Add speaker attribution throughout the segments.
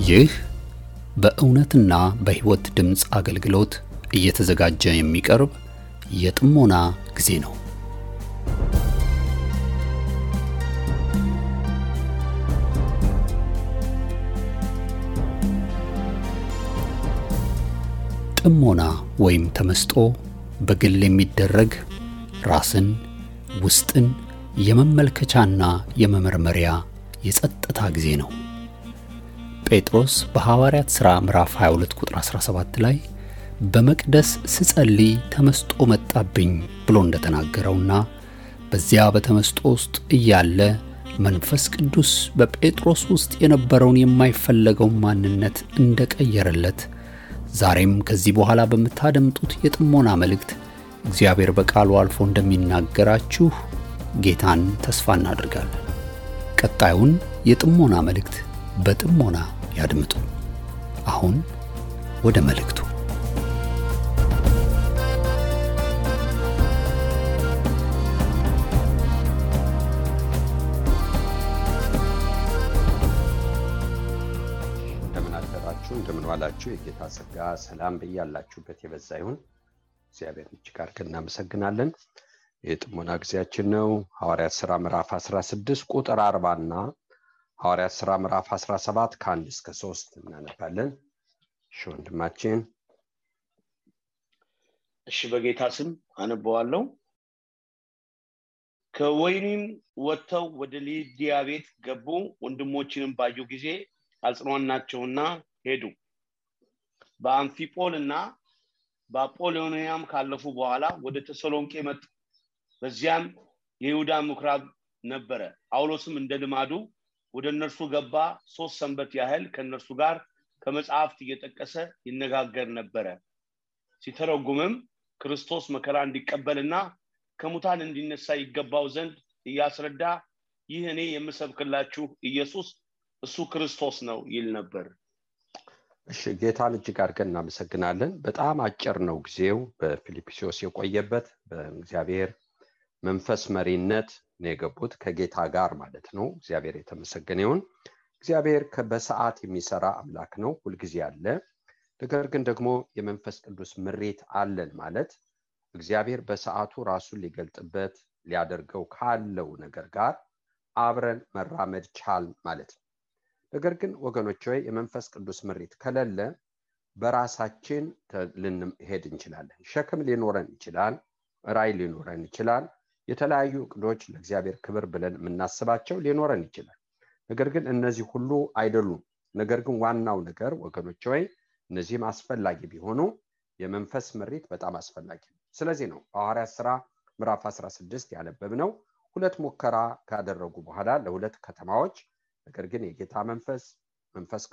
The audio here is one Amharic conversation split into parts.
Speaker 1: ይህ በእውነትና በሕይወት ድምጽ አገልግሎት እየተዘጋጀ የሚቀርብ የጥሞና ጊዜ ነው። ጥሞና ወይም ተመስጦ በግል የሚደረግ ራስን ውስጥን የመመልከቻና የመመርመሪያ የጸጥታ ጊዜ ነው። ጴጥሮስ በሐዋርያት ሥራ ምዕራፍ 22 ቁጥር 17 ላይ በመቅደስ ስጸልይ ተመስጦ መጣብኝ ብሎ እንደተናገረውና በዚያ በተመስጦ ውስጥ እያለ መንፈስ ቅዱስ በጴጥሮስ ውስጥ የነበረውን የማይፈለገው ማንነት እንደቀየረለት ዛሬም ከዚህ በኋላ በመታደምጡት የጥሞና መልእክት እግዚአብሔር በቃሉ አልፎ እንደሚናገራችሁ ጌታን ተስፋ እናደርጋለን። ቀጣዩን የጥሞና መልእክት በጥሞና ያድምጡ። አሁን ወደ መልእክቱ።
Speaker 2: እንደምን ዋላችሁ። የጌታ ጸጋ ሰላም በያላችሁበት የበዛ ይሁን። እግዚአብሔር እጅግ አድርገን እናመሰግናለን። የጥሞና ጊዜያችን ነው። ሐዋርያት ሥራ ምዕራፍ 16 ቁጥር 40 እና ሐዋርያት ሥራ ምዕራፍ 17 ከ1 እስከ 3 እናነባለን። ወንድማችን
Speaker 3: እሺ፣ በጌታ ስም አነባዋለሁ። ከወይኒም ወጥተው ወደ ሊዲያ ቤት ገቡ። ወንድሞችንም ባዩ ጊዜ አጽናኗቸውና ሄዱ። በአምፊጶልና በአጶሎንያም ካለፉ በኋላ ወደ ተሰሎንቄ መጡ። በዚያም የይሁዳ ምኵራብ ነበረ። ጳውሎስም እንደ ልማዱ ወደ እነርሱ ገባ። 3 ሰንበት ያህል ከእነርሱ ጋር ከመጽሐፍት እየጠቀሰ ይነጋገር ነበረ። ሲተረጉምም ክርስቶስ መከራ እንዲቀበልና ከሙታን እንዲነሳ ይገባው ዘንድ እያስረዳ ይህ እኔ የምሰብክላችሁ ኢየሱስ እሱ ክርስቶስ ነው ይል ነበር።
Speaker 2: እሺ፣ ጌታን እጅግ አድርገን እናመሰግናለን። በጣም አጭር ነው ጊዜው። በፊልጵስዩስ የቆየበት በእግዚአብሔር መንፈስ መሪነት ነው የገቡት፣ ከጌታ ጋር ማለት ነው። እግዚአብሔር የተመሰገነ ይሁን። እግዚአብሔር በሰዓት የሚሰራ አምላክ ነው፣ ሁልጊዜ አለ። ነገር ግን ደግሞ የመንፈስ ቅዱስ ምሪት አለን ማለት እግዚአብሔር በሰዓቱ ራሱን ሊገልጥበት ሊያደርገው ካለው ነገር ጋር አብረን መራመድ ቻል ማለት ነው። ነገር ግን ወገኖች ሆይ የመንፈስ ቅዱስ ምሪት ከሌለ በራሳችን ልንሄድ እንችላለን። ሸክም ሊኖረን ይችላል፣ ራዕይ ሊኖረን ይችላል፣ የተለያዩ እቅዶች ለእግዚአብሔር ክብር ብለን የምናስባቸው ሊኖረን ይችላል። ነገር ግን እነዚህ ሁሉ አይደሉም። ነገር ግን ዋናው ነገር ወገኖች ሆይ እነዚህም አስፈላጊ ቢሆኑ የመንፈስ ምሪት በጣም አስፈላጊ ነው። ስለዚህ ነው ሐዋርያት ሥራ ምዕራፍ 16 ያነበብነው 2 ሙከራ ካደረጉ በኋላ ለ2 ከተማዎች ነገር ግን የጌታ መንፈስ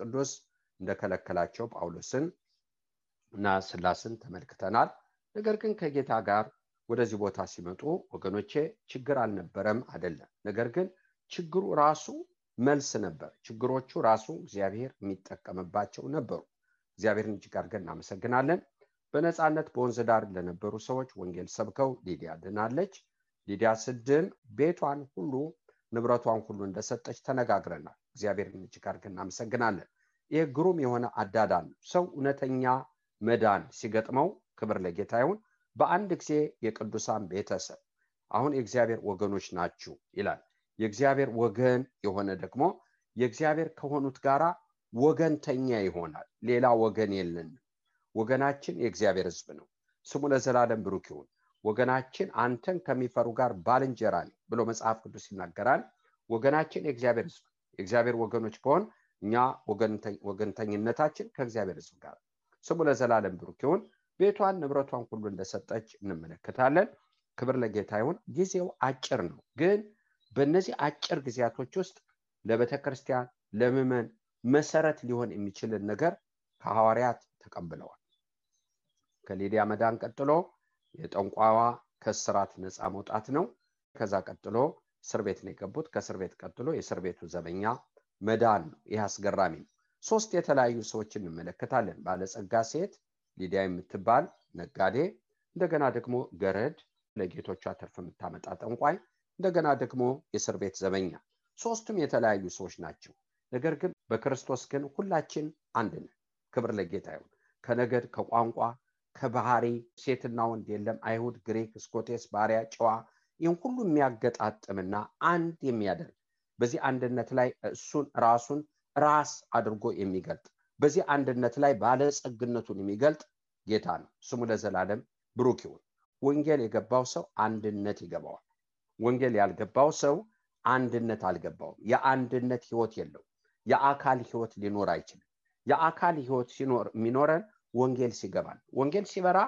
Speaker 2: ቅዱስ እንደከለከላቸው ጳውሎስን እና ሲላስን ተመልክተናል። ነገር ግን ከጌታ ጋር ወደዚህ ቦታ ሲመጡ ወገኖቼ ችግር አልነበረም አይደለም። ነገር ግን ችግሩ ራሱ መልስ ነበር። ችግሮቹ ራሱ እግዚአብሔር የሚጠቀምባቸው ነበሩ። እግዚአብሔርን እጅግ አድርገን እናመሰግናለን። በነፃነት በወንዝ ዳር ለነበሩ ሰዎች ወንጌል ሰብከው ሊዲያ ድናለች። ሊዲያ ስድን ቤቷን ሁሉ ንብረቷን ሁሉ እንደሰጠች ተነጋግረናል። እግዚአብሔርን እጅግ አድርገን እናመሰግናለን። ይህ ግሩም የሆነ አዳዳን ሰው እውነተኛ መዳን ሲገጥመው ክብር ለጌታ ይሁን። በአንድ ጊዜ የቅዱሳን ቤተሰብ አሁን የእግዚአብሔር ወገኖች ናችሁ ይላል። የእግዚአብሔር ወገን የሆነ ደግሞ የእግዚአብሔር ከሆኑት ጋራ ወገንተኛ ይሆናል። ሌላ ወገን የለንም። ወገናችን የእግዚአብሔር ሕዝብ ነው። ስሙ ለዘላለም ብሩክ ይሁን። ወገናችን አንተን ከሚፈሩ ጋር ባልንጀራ ነው ብሎ መጽሐፍ ቅዱስ ይናገራል። ወገናችን የእግዚአብሔር ሕዝብ፣ የእግዚአብሔር ወገኖች ከሆን እኛ ወገንተኝነታችን ከእግዚአብሔር ሕዝብ ጋር። ስሙ ለዘላለም ብሩክ ይሁን። ቤቷን ንብረቷን ሁሉ እንደሰጠች እንመለከታለን። ክብር ለጌታ ይሁን። ጊዜው አጭር ነው፣ ግን በእነዚህ አጭር ጊዜያቶች ውስጥ ለቤተክርስቲያን ለምዕመን መሰረት ሊሆን የሚችልን ነገር ከሐዋርያት ተቀብለዋል። ከሊዲያ መዳን ቀጥሎ የጠንቋዋ ከስራት ነፃ መውጣት ነው። ከዛ ቀጥሎ እስር ቤት ነው የገቡት። ከእስር ቤት ቀጥሎ የእስር ቤቱ ዘበኛ መዳን ነው። ይህ አስገራሚ ነው። 3 የተለያዩ ሰዎችን እንመለከታለን። ባለጸጋ ሴት ሊዲያ የምትባል ነጋዴ፣ እንደገና ደግሞ ገረድ ለጌቶቿ ትርፍ የምታመጣ ጠንቋይ፣ እንደገና ደግሞ የእስር ቤት ዘበኛ። 3ቱም የተለያዩ ሰዎች ናቸው። ነገር ግን በክርስቶስ ግን ሁላችን አንድ ነን። ክብር ለጌታ ይሁን። ከነገድ ከቋንቋ ከባህሪ ሴትና ወንድ የለም፣ አይሁድ፣ ግሪክ፣ ስኮቴስ፣ ባሪያ፣ ጨዋ ይህን ሁሉ የሚያገጣጥምና አንድ የሚያደርግ በዚህ አንድነት ላይ እሱን ራሱን ራስ አድርጎ የሚገልጥ በዚህ አንድነት ላይ ባለጸግነቱን የሚገልጥ ጌታ ነው። ስሙ ለዘላለም ብሩክ ይሁን። ወንጌል የገባው ሰው አንድነት ይገባዋል። ወንጌል ያልገባው ሰው አንድነት አልገባውም። የአንድነት ህይወት የለው። የአካል ህይወት ሊኖር አይችልም። የአካል ህይወት ሲኖር የሚኖረን ወንጌል ሲገባል። ወንጌል ሲበራ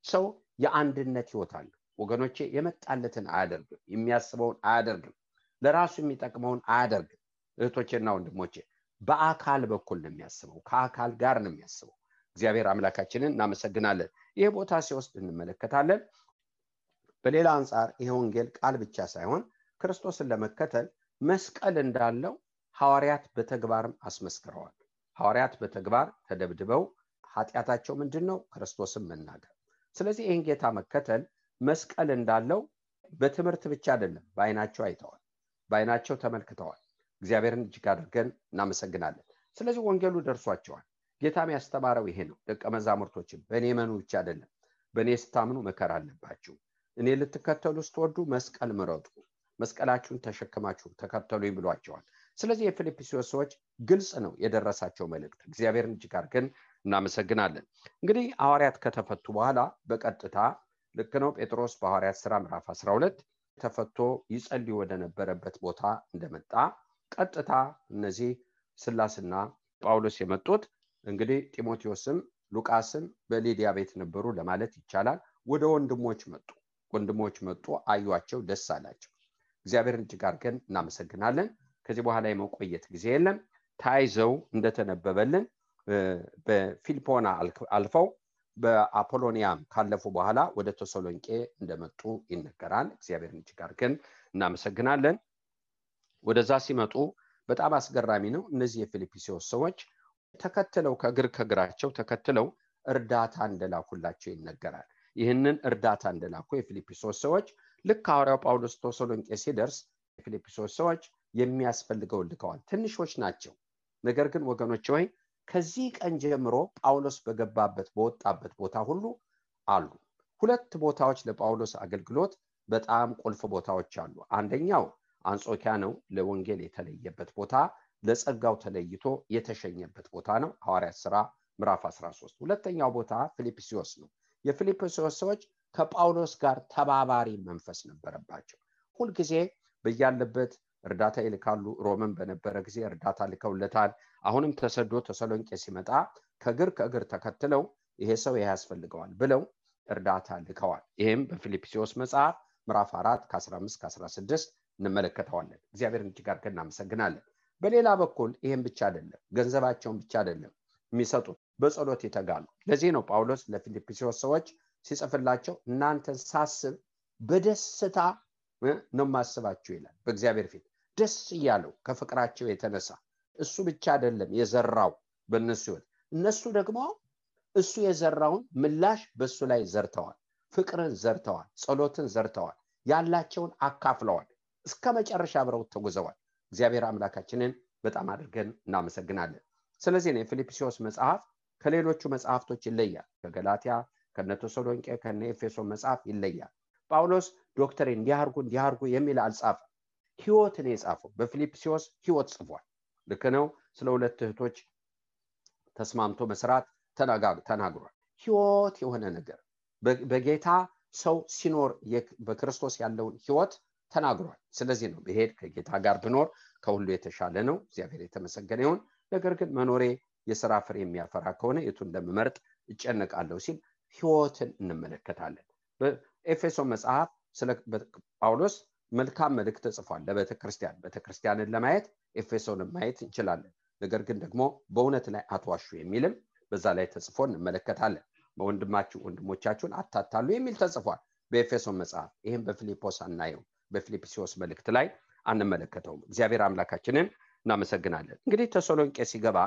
Speaker 2: ሰው የአንድነት ህይወት አለ። ወገኖቼ የመጣለትን አያደርግም፣ የሚያስበውን አያደርግም፣ ለራሱ የሚጠቅመውን አያደርግም። እህቶቼና ወንድሞቼ በአካል በኩል ነው የሚያስበው፣ ከአካል ጋር ነው የሚያስበው። እግዚአብሔር አምላካችንን እናመሰግናለን። ይሄ ቦታ ሲወስድ እንመለከታለን። በሌላ አንፃር ይሄ ወንጌል ቃል ብቻ ሳይሆን ክርስቶስን ለመከተል መስቀል እንዳለው ሐዋርያት በተግባርም አስመስክረዋል። ሐዋርያት በተግባር ተደብድበው ኃጢአታቸው ምንድነው? ክርስቶስን መናገር። ስለዚህ ይህን ጌታ መከተል መስቀል እንዳለው በትምህርት ብቻ አይደለም፣ በአይናቸው አይተዋል፣ በአይናቸው ተመልክተዋል። እግዚአብሔርን እጅግ አድርገን እናመሰግናለን። ስለዚህ ወንጌሉ ደርሷቸዋል። ጌታም ያስተማረው ይሄ ነው። ደቀ መዛሙርቶችን በእኔ መኑ ብቻ አይደለም፣ በእኔ ስታምኑ መከራ አለባችሁ። እኔ ልትከተሉ ስትወዱ መስቀል ምረጡ፣ መስቀላችሁን ተሸክማችሁ ተከተሉኝ ብሏቸዋል። ስለዚህ የፊልጵስዩስ ሰዎች ግልጽ ነው የደረሳቸው መልእክት። እግዚአብሔርን እጅግ አድርገን እናመሰግናለን። እንግዲህ ሐዋርያት ከተፈቱ በኋላ በቀጥታ ልክ ነው ጴጥሮስ በሐዋርያት ሥራ ምዕራፍ 12 ተፈቶ ይጸልይ ወደ ነበረበት ቦታ እንደመጣ ቀጥታ እነዚህ ስላስና ጳውሎስ የመጡት እንግዲህ ጢሞቴዎስም ሉቃስም በሊዲያ ቤት ነበሩ ለማለት ይቻላል። ወደ ወንድሞች መጡ፣ አዩአቸው፣ ደስ አላቸው። እግዚአብሔርን እጅግ አድርገን እናመሰግናለን። ከዚህ በኋላ የመቆየት ጊዜ የለም። ታይዘው እንደተነበበልን በፊልጶና አልፈው በአፖሎኒያም ካለፉ በኋላ ወደ ተሰሎንቄ እንደመጡ ይነገራል። እግዚአብሔርን እጅግ አድርገን እናመሰግናለን። ወደዛ ሲመጡ በጣም አስገራሚ ነው። እነዚህ የፊልጵስዩስ ሰዎች ተከትለው ከግራቸው ተከትለው እርዳታ እንደላኩላቸው ይነገራል። ይህንን እርዳታ እንደላኩ የፊልጵስዩስ ሰዎች ልክ ሐዋርያው ጳውሎስ ተሰሎንቄ ሲደርስ የፊልጵስዩስ ሰዎች የሚያስፈልገው ልከዋል። ትንሾች ናቸው። ነገር ግን ወገኖች ሆይ ከዚህ ቀን ጀምሮ ጳውሎስ በገባበት በወጣበት ቦታ ሁሉ አሉ። ሁለት ቦታዎች ለጳውሎስ አገልግሎት በጣም ቁልፍ ቦታዎች አሉ። አንደኛው አንጾኪያ ነው፣ ለወንጌል የተለየበት ቦታ፣ ለጸጋው ተለይቶ የተሸኘበት ቦታ ነው፣ ሐዋርያት ሥራ ምዕራፍ 13። ሁለተኛው ቦታ ፊልጵስዩስ ነው። የፊልጵስዩስ ሰዎች ከጳውሎስ ጋር ተባባሪ መንፈስ ነበረባቸው። ሁልጊዜ በያለበት እርዳታ ይልካሉ። ሮምን በነበረ ጊዜ እርዳታ ልከውለታል። አሁንም ተሰዶ ተሰሎንቄ ሲመጣ ከእግር ተከትለው ይሄ ሰው ያስፈልገዋል ብለው እርዳታ ልከዋል። ይሄም በፊልጵስዩስ መጽሐፍ ምዕራፍ 4 ከ15 ከ16 እንመለከተዋለን። እግዚአብሔርን እጅግ አድርገን እናመሰግናለን። በሌላ በኩል ይሄም ብቻ አይደለም፣ ገንዘባቸውን ብቻ አይደለም የሚሰጡት፣ በጸሎት ይተጋሉ። ለዚህ ነው ጳውሎስ ለፊልጵስዩስ ሰዎች ሲጽፍላቸው እናንተን ሳስብ በደስታ ነው ማስባችሁ ይላል። በእግዚአብሔር ፊት ደስ እያለው ከፍቅራቸው የተነሳ እሱ ብቻ አይደለም የዘራው በእነሱ ሕይወት፣ እነሱ ደግሞ እሱ የዘራውን ምላሽ በሱ ላይ ዘርተዋል። ፍቅርን ዘርተዋል፣ ጸሎትን ዘርተዋል፣ ያላቸውን አካፍለዋል፣ እስከ መጨረሻ አብረው ተጉዘዋል። እግዚአብሔር አምላካችንን በጣም አድርገን እናመሰግናለን። ስለዚህ ነው የፊልጵስዩስ መጽሐፍ ከሌሎቹ መጽሐፍቶች ይለያል። ከገላትያ፣ ከነተሰሎንቄ፣ ከነኤፌሶን መጽሐፍ ይለያል። ጳውሎስ ዶክተሪን እንዲያርጉ የሚል አልጻፈም። ሕይወትን የጻፈው በፊልጵስዩስ ሕይወት ጽፏል። ልክ ነው። ስለ ሁለት እህቶች ተስማምቶ መስራት ተናግሯል። ሕይወት የሆነ ነገር በጌታ ሰው ሲኖር በክርስቶስ ያለውን ሕይወት ተናግሯል። ስለዚህ ነው በሄድ ከጌታ ጋር ብኖር ከሁሉ የተሻለ ነው፣ እግዚአብሔር የተመሰገነ ይሁን። ነገር ግን መኖሬ የሥራ ፍሬ የሚያፈራ ከሆነ የቱን እንደምመርጥ እጨነቃለሁ ሲል ሕይወትን እንመለከታለን። በኤፌሶን መጽሐፍ ስለ ጳውሎስ መልካም መልእክት ጽፏል ለቤተክርስቲያንን ለማየት ኤፌሶንን ማየት እንችላለን። ነገር ግን ደግሞ በእውነት ላይ አትዋሹ የሚልም በዛ ላይ ተጽፎ እንመለከታለን። ወንድሞቻችሁን አታታሉ የሚል ተጽፏል በኤፌሶን መጽሐፍ። ይህም በፊልጶስ አናየው፣ በፊልጵስዩስ መልእክት ላይ አንመለከተውም። እግዚአብሔር አምላካችንን እናመሰግናለን። እንግዲህ ተሰሎንቄ ሲገባ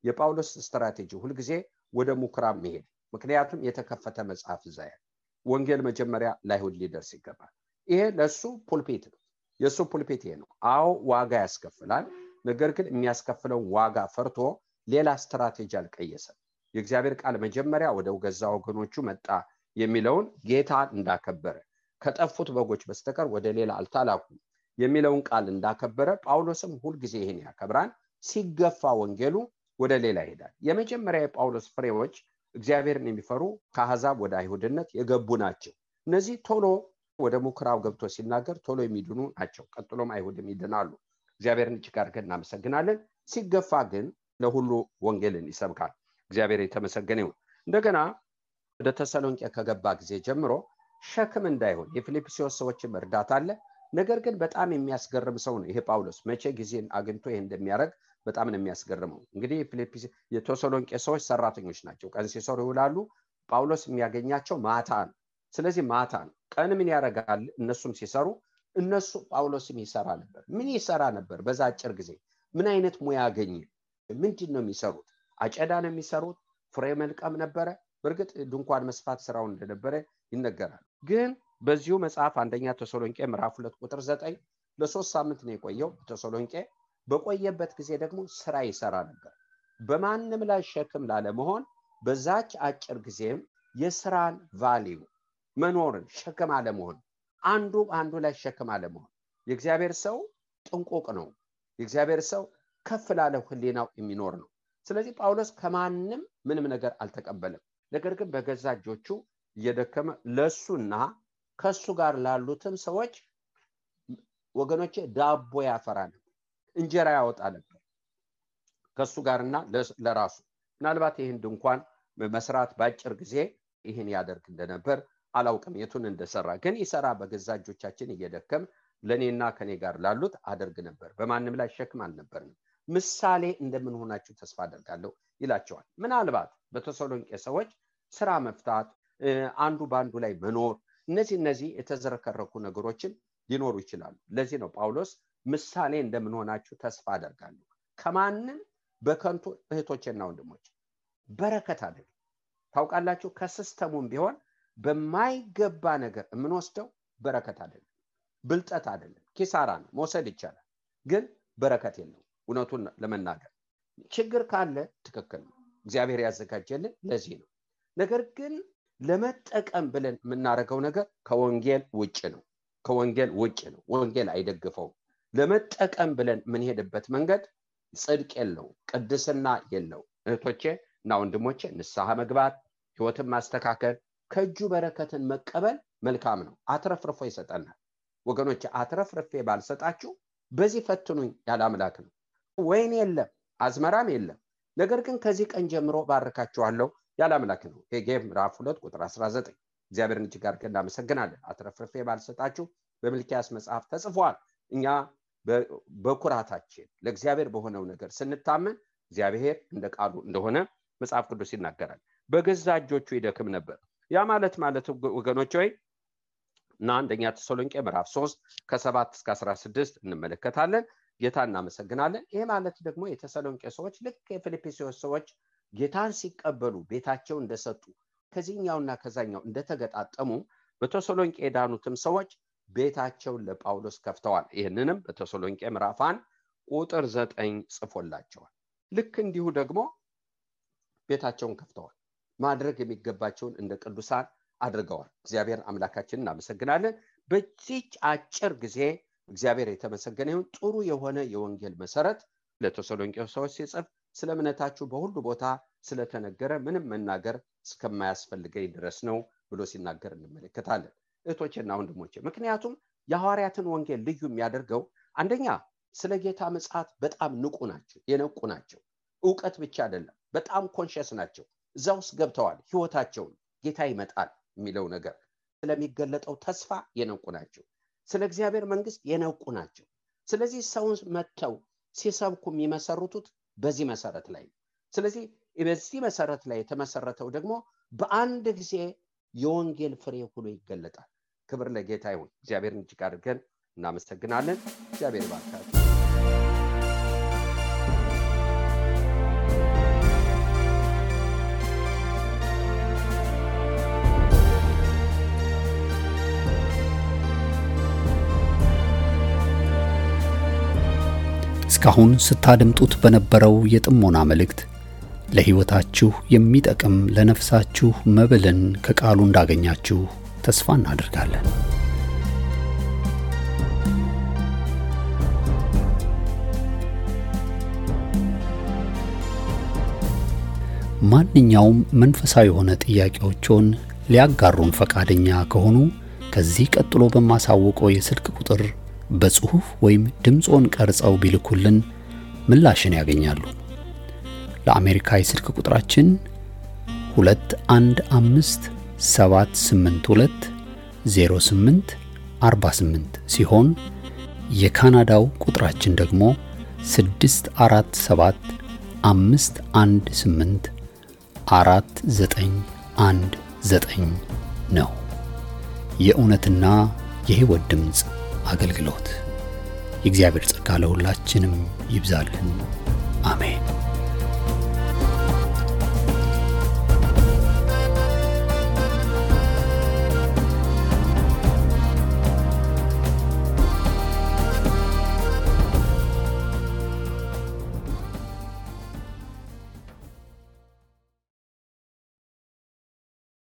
Speaker 2: የጳውሎስ ስትራቴጂ ሁልጊዜ ወደ ምኩራብ መሄድ፣ ምክንያቱም የተከፈተ መጽሐፍ እዛ ያለ ወንጌል መጀመሪያ ለአይሁድ ሊደርስ ይገባል። ይሄ ለሱ ፑልፒት ነው። የሱ ፑልፒት ይሄ ነው። አዎ ዋጋ ያስከፍላል። ነገር ግን የሚያስከፍለው ዋጋ ፈርቶ ሌላ ስትራቴጂ አልቀየሰም። የእግዚአብሔር ቃል መጀመሪያ ወደ ገዛ ወገኖቹ መጣ የሚለውን ጌታ እንዳከበረ ከጠፉት በጎች በስተቀር ወደ ሌላ አልተላኩም የሚለውን ቃል እንዳከበረ ጳውሎስም ሁሉ ጊዜ ይሄን ያከብራል። ሲገፋ ወንጌሉ ወደ ሌላ ይሄዳል። የመጀመሪያ የጳውሎስ ፍሬዎች እግዚአብሔርን የሚፈሩ ከአሕዛብ ወደ አይሁድነት የገቡ ናቸው። እነዚህ ቶሎ ወደ ምኩራብ ገብቶ ሲናገር ቶሎ የሚድኑ ናቸው። ቀጥሎም አይሁድም ይድናሉ። እግዚአብሔርን እጅግ አድርገን እናመሰግናለን። ሲገፋ ግን ለሁሉ ወንጌልን ይሰብካል። እግዚአብሔር የተመሰገነ ይሁን። እንደገና ወደ ተሰሎንቄ ከገባ ጊዜ ጀምሮ ሸክም እንዳይሆን የፊልጵስዩስ ሰዎችም እርዳታ አለ። ነገር ግን በጣም የሚያስገርም ሰው ነው ይሄ ጳውሎስ። መቼ ጊዜን አግኝቶ ይሄ እንደሚያደርግ በጣም ነው የሚያስገርመው። እንግዲህ የተሰሎንቄ ሰዎች ሰራተኞች ናቸው። ቀን ሲሰሩ ይውላሉ። ጳውሎስ የሚያገኛቸው ማታ ነው። ስለዚህ ማታ ነው። ቀን ምን ያደርጋል? እነሱም ሲሰሩ እነሱ ጳውሎስም ይሰራ ነበር። ምን ይሰራ ነበር? በዛ አጭር ጊዜ ምን አይነት ሙያ አገኘ? ምንድን ነው የሚሰሩት? አጨዳ ነው የሚሰሩት? ፍሬ መልቀም ነበረ? በእርግጥ ድንኳን መስፋት ስራው እንደነበረ ይነገራል። ግን በዚሁ መጽሐፍ አንደኛ ተሰሎንቄ ምዕራፍ 2 ቁጥር 9 ለ3 ሳምንት ነው የቆየው። ተሰሎንቄ በቆየበት ጊዜ ደግሞ ስራ ይሰራ ነበር። በማንም ላይ ሸክም ላለመሆን በዛች አጭር ጊዜም የስራን ቫልዩ መኖርን ሸክም አለመሆን፣ አንዱ ላይ ሸክም አለመሆን። የእግዚአብሔር ሰው ጥንቁቅ ነው። የእግዚአብሔር ሰው ከፍ ላለ ህሊናው የሚኖር ነው። ስለዚህ ጳውሎስ ከማንም ምንም ነገር አልተቀበለም። ነገር ግን በገዛ እጆቹ እየደከመ ለሱና ከሱ ጋር ላሉትም ሰዎች ወገኖቼ ዳቦ ያፈራ ነበር፣ እንጀራ ያወጣ ነበር ከሱ ጋርና ለራሱ። ምናልባት ይህን ድንኳን መስራት ባጭር ጊዜ ይህን ያደርግ እንደነበር አላውቅም የቱን እንደሰራ። ግን ይሰራ በገዛ እጆቻችን እየደከም ለኔና ከኔ ጋር ላሉት አደርግ ነበር። በማንም ላይ ሸክም አልነበርንም። ምሳሌ እንደምንሆናችሁ ተስፋ አደርጋለሁ ይላቸዋል። ምናልባት በተሰሎንቄ ሰዎች ስራ መፍታት፣ አንዱ ባንዱ ላይ መኖር፣ እነዚህ የተዘረከረኩ ነገሮችን ሊኖሩ ይችላሉ። ለዚህ ነው ጳውሎስ ምሳሌ እንደምንሆናችሁ ተስፋ አደርጋለሁ። ከማንም በከንቱ እህቶችና ወንድሞች በረከት አይደለም። ታውቃላችሁ ከሲስተሙም ቢሆን በማይገባ ነገር የምንወስደው በረከት አይደለም፣ ብልጠት አይደለም፣ ኪሳራ ነው። መውሰድ ይቻላል ግን በረከት የለው። እውነቱን ለመናገር ችግር ካለ ትክክል ነው፣ እግዚአብሔር ያዘጋጀልን ለዚህ ነው። ነገር ግን ለመጠቀም ብለን የምናደርገው ነገር ከወንጌል ውጭ ነው። ወንጌል አይደግፈውም። ለመጠቀም ብለን የምንሄድበት መንገድ ጽድቅ የለው፣ ቅድስና የለው። እህቶቼ እና ወንድሞቼ ንስሐ መግባት፣ ህይወትን ማስተካከል፣ ከእጁ በረከትን መቀበል መልካም ነው። አትረፍርፎ ይሰጠናል። ወገኖቼ አትረፍርፌ ባልሰጣችሁ በዚህ ፈትኑኝ ያለ አምላክ ነው። ወይን የለም አዝመራም የለም፣ ነገር ግን ከዚህ ቀን ጀምሮ ባርካችኋለሁ ያለ አምላክ ነው። ሄጌ ምዕራፍ 2 ቁጥር 19 እግዚአብሔርን እጅግ አድርገን እናመሰግናለን። አትረፍርፌ ባልሰጣችሁ በሚልክያስ መጽሐፍ ተጽፏል። እኛ በኩራታችን ለእግዚአብሔር በሆነው ነገር ስንታመን እግዚአብሔር እንደ ቃሉ እንደሆነ መጽሐፍ ቅዱስ ይናገራል። በገዛ እጆቹ ይደክም ነበር። ያ ማለት ወገኖች ሆይ እና አንደኛ ተሰሎንቄ ምዕራፍ 3 ከ7 እስከ 16 እንመለከታለን። ጌታ እናመሰግናለን። ይሄ ማለት ደግሞ የተሰሎንቄ ሰዎች ልክ የፊልጵስዩስ ሰዎች ጌታን ሲቀበሉ ቤታቸው እንደሰጡ ከዚህኛውና ከዛኛው እንደተገጣጠሙ በተሰሎንቄ የዳኑትም ሰዎች ቤታቸውን ለጳውሎስ ከፍተዋል። ይህንንም በተሰሎንቄ ምዕራፍ 1 ቁጥር 9 ጽፎላቸዋል። ልክ እንዲሁ ደግሞ ቤታቸውን ከፍተዋል። ማድረግ የሚገባቸውን እንደ ቅዱሳን አድርገዋል። እግዚአብሔር አምላካችንን እናመሰግናለን። በዚህ አጭር ጊዜ እግዚአብሔር የተመሰገነ ይሁን። ጥሩ የሆነ የወንጌል መሰረት ለተሰሎንቄ ሰዎች ሲጽፍ ስለ እምነታችሁ በሁሉ ቦታ ስለተነገረ ምንም መናገር እስከማያስፈልገኝ ድረስ ነው ብሎ ሲናገር እንመለከታለን። እህቶቼና ወንድሞቼ ምክንያቱም የሐዋርያትን ወንጌል ልዩ የሚያደርገው አንደኛ ስለ ጌታ ምጽአት በጣም የነቁ ናቸው። ዕውቀት ብቻ አይደለም፣ በጣም ኮንሽስ ናቸው። እዛ ውስጥ ገብተዋል። ህይወታቸውን ጌታ ይመጣል የሚለው ነገር ስለሚገለጠው ተስፋ የነቁ ናቸው። ስለ እግዚአብሔር መንግስት የነቁ ናቸው። ስለዚህ ሰውን መተው ሲሰብኩ የሚመሰርቱት በዚህ መሰረት ላይ ነው። ስለዚህ በዚህ መሰረት ላይ የተመሰረተው ደግሞ በአንድ ጊዜ የወንጌል ፍሬ ሁሉ ይገለጣል። ክብር ለጌታ ይሁን። እግዚአብሔርን እጅግ አድርገን እናመሰግናለን። እግዚአብሔር ይባርካችሁ።
Speaker 1: እስካሁን ስታደምጡት በነበረው የጥሞና መልእክት ለሕይወታችሁ የሚጠቅም ለነፍሳችሁ መብልን ከቃሉ እንዳገኛችሁ ተስፋ እናደርጋለን። ማንኛውም መንፈሳዊ የሆነ ጥያቄዎችን ሊያጋሩን ፈቃደኛ ከሆኑ ከዚህ ቀጥሎ በማሳወቀው የስልክ ቁጥር በጽሑፍ ወይም ድምጾን ቀርጸው ቢልኩልን ምላሽን ያገኛሉ። ለአሜሪካ የስልክ ቁጥራችን 2157820848 ሲሆን የካናዳው ቁጥራችን ደግሞ 647-518-4919 ነው። የእውነትና የሕይወት ድምጽ አገልግሎት። የእግዚአብሔር ጸጋ ለሁላችንም ይብዛልን። አሜን።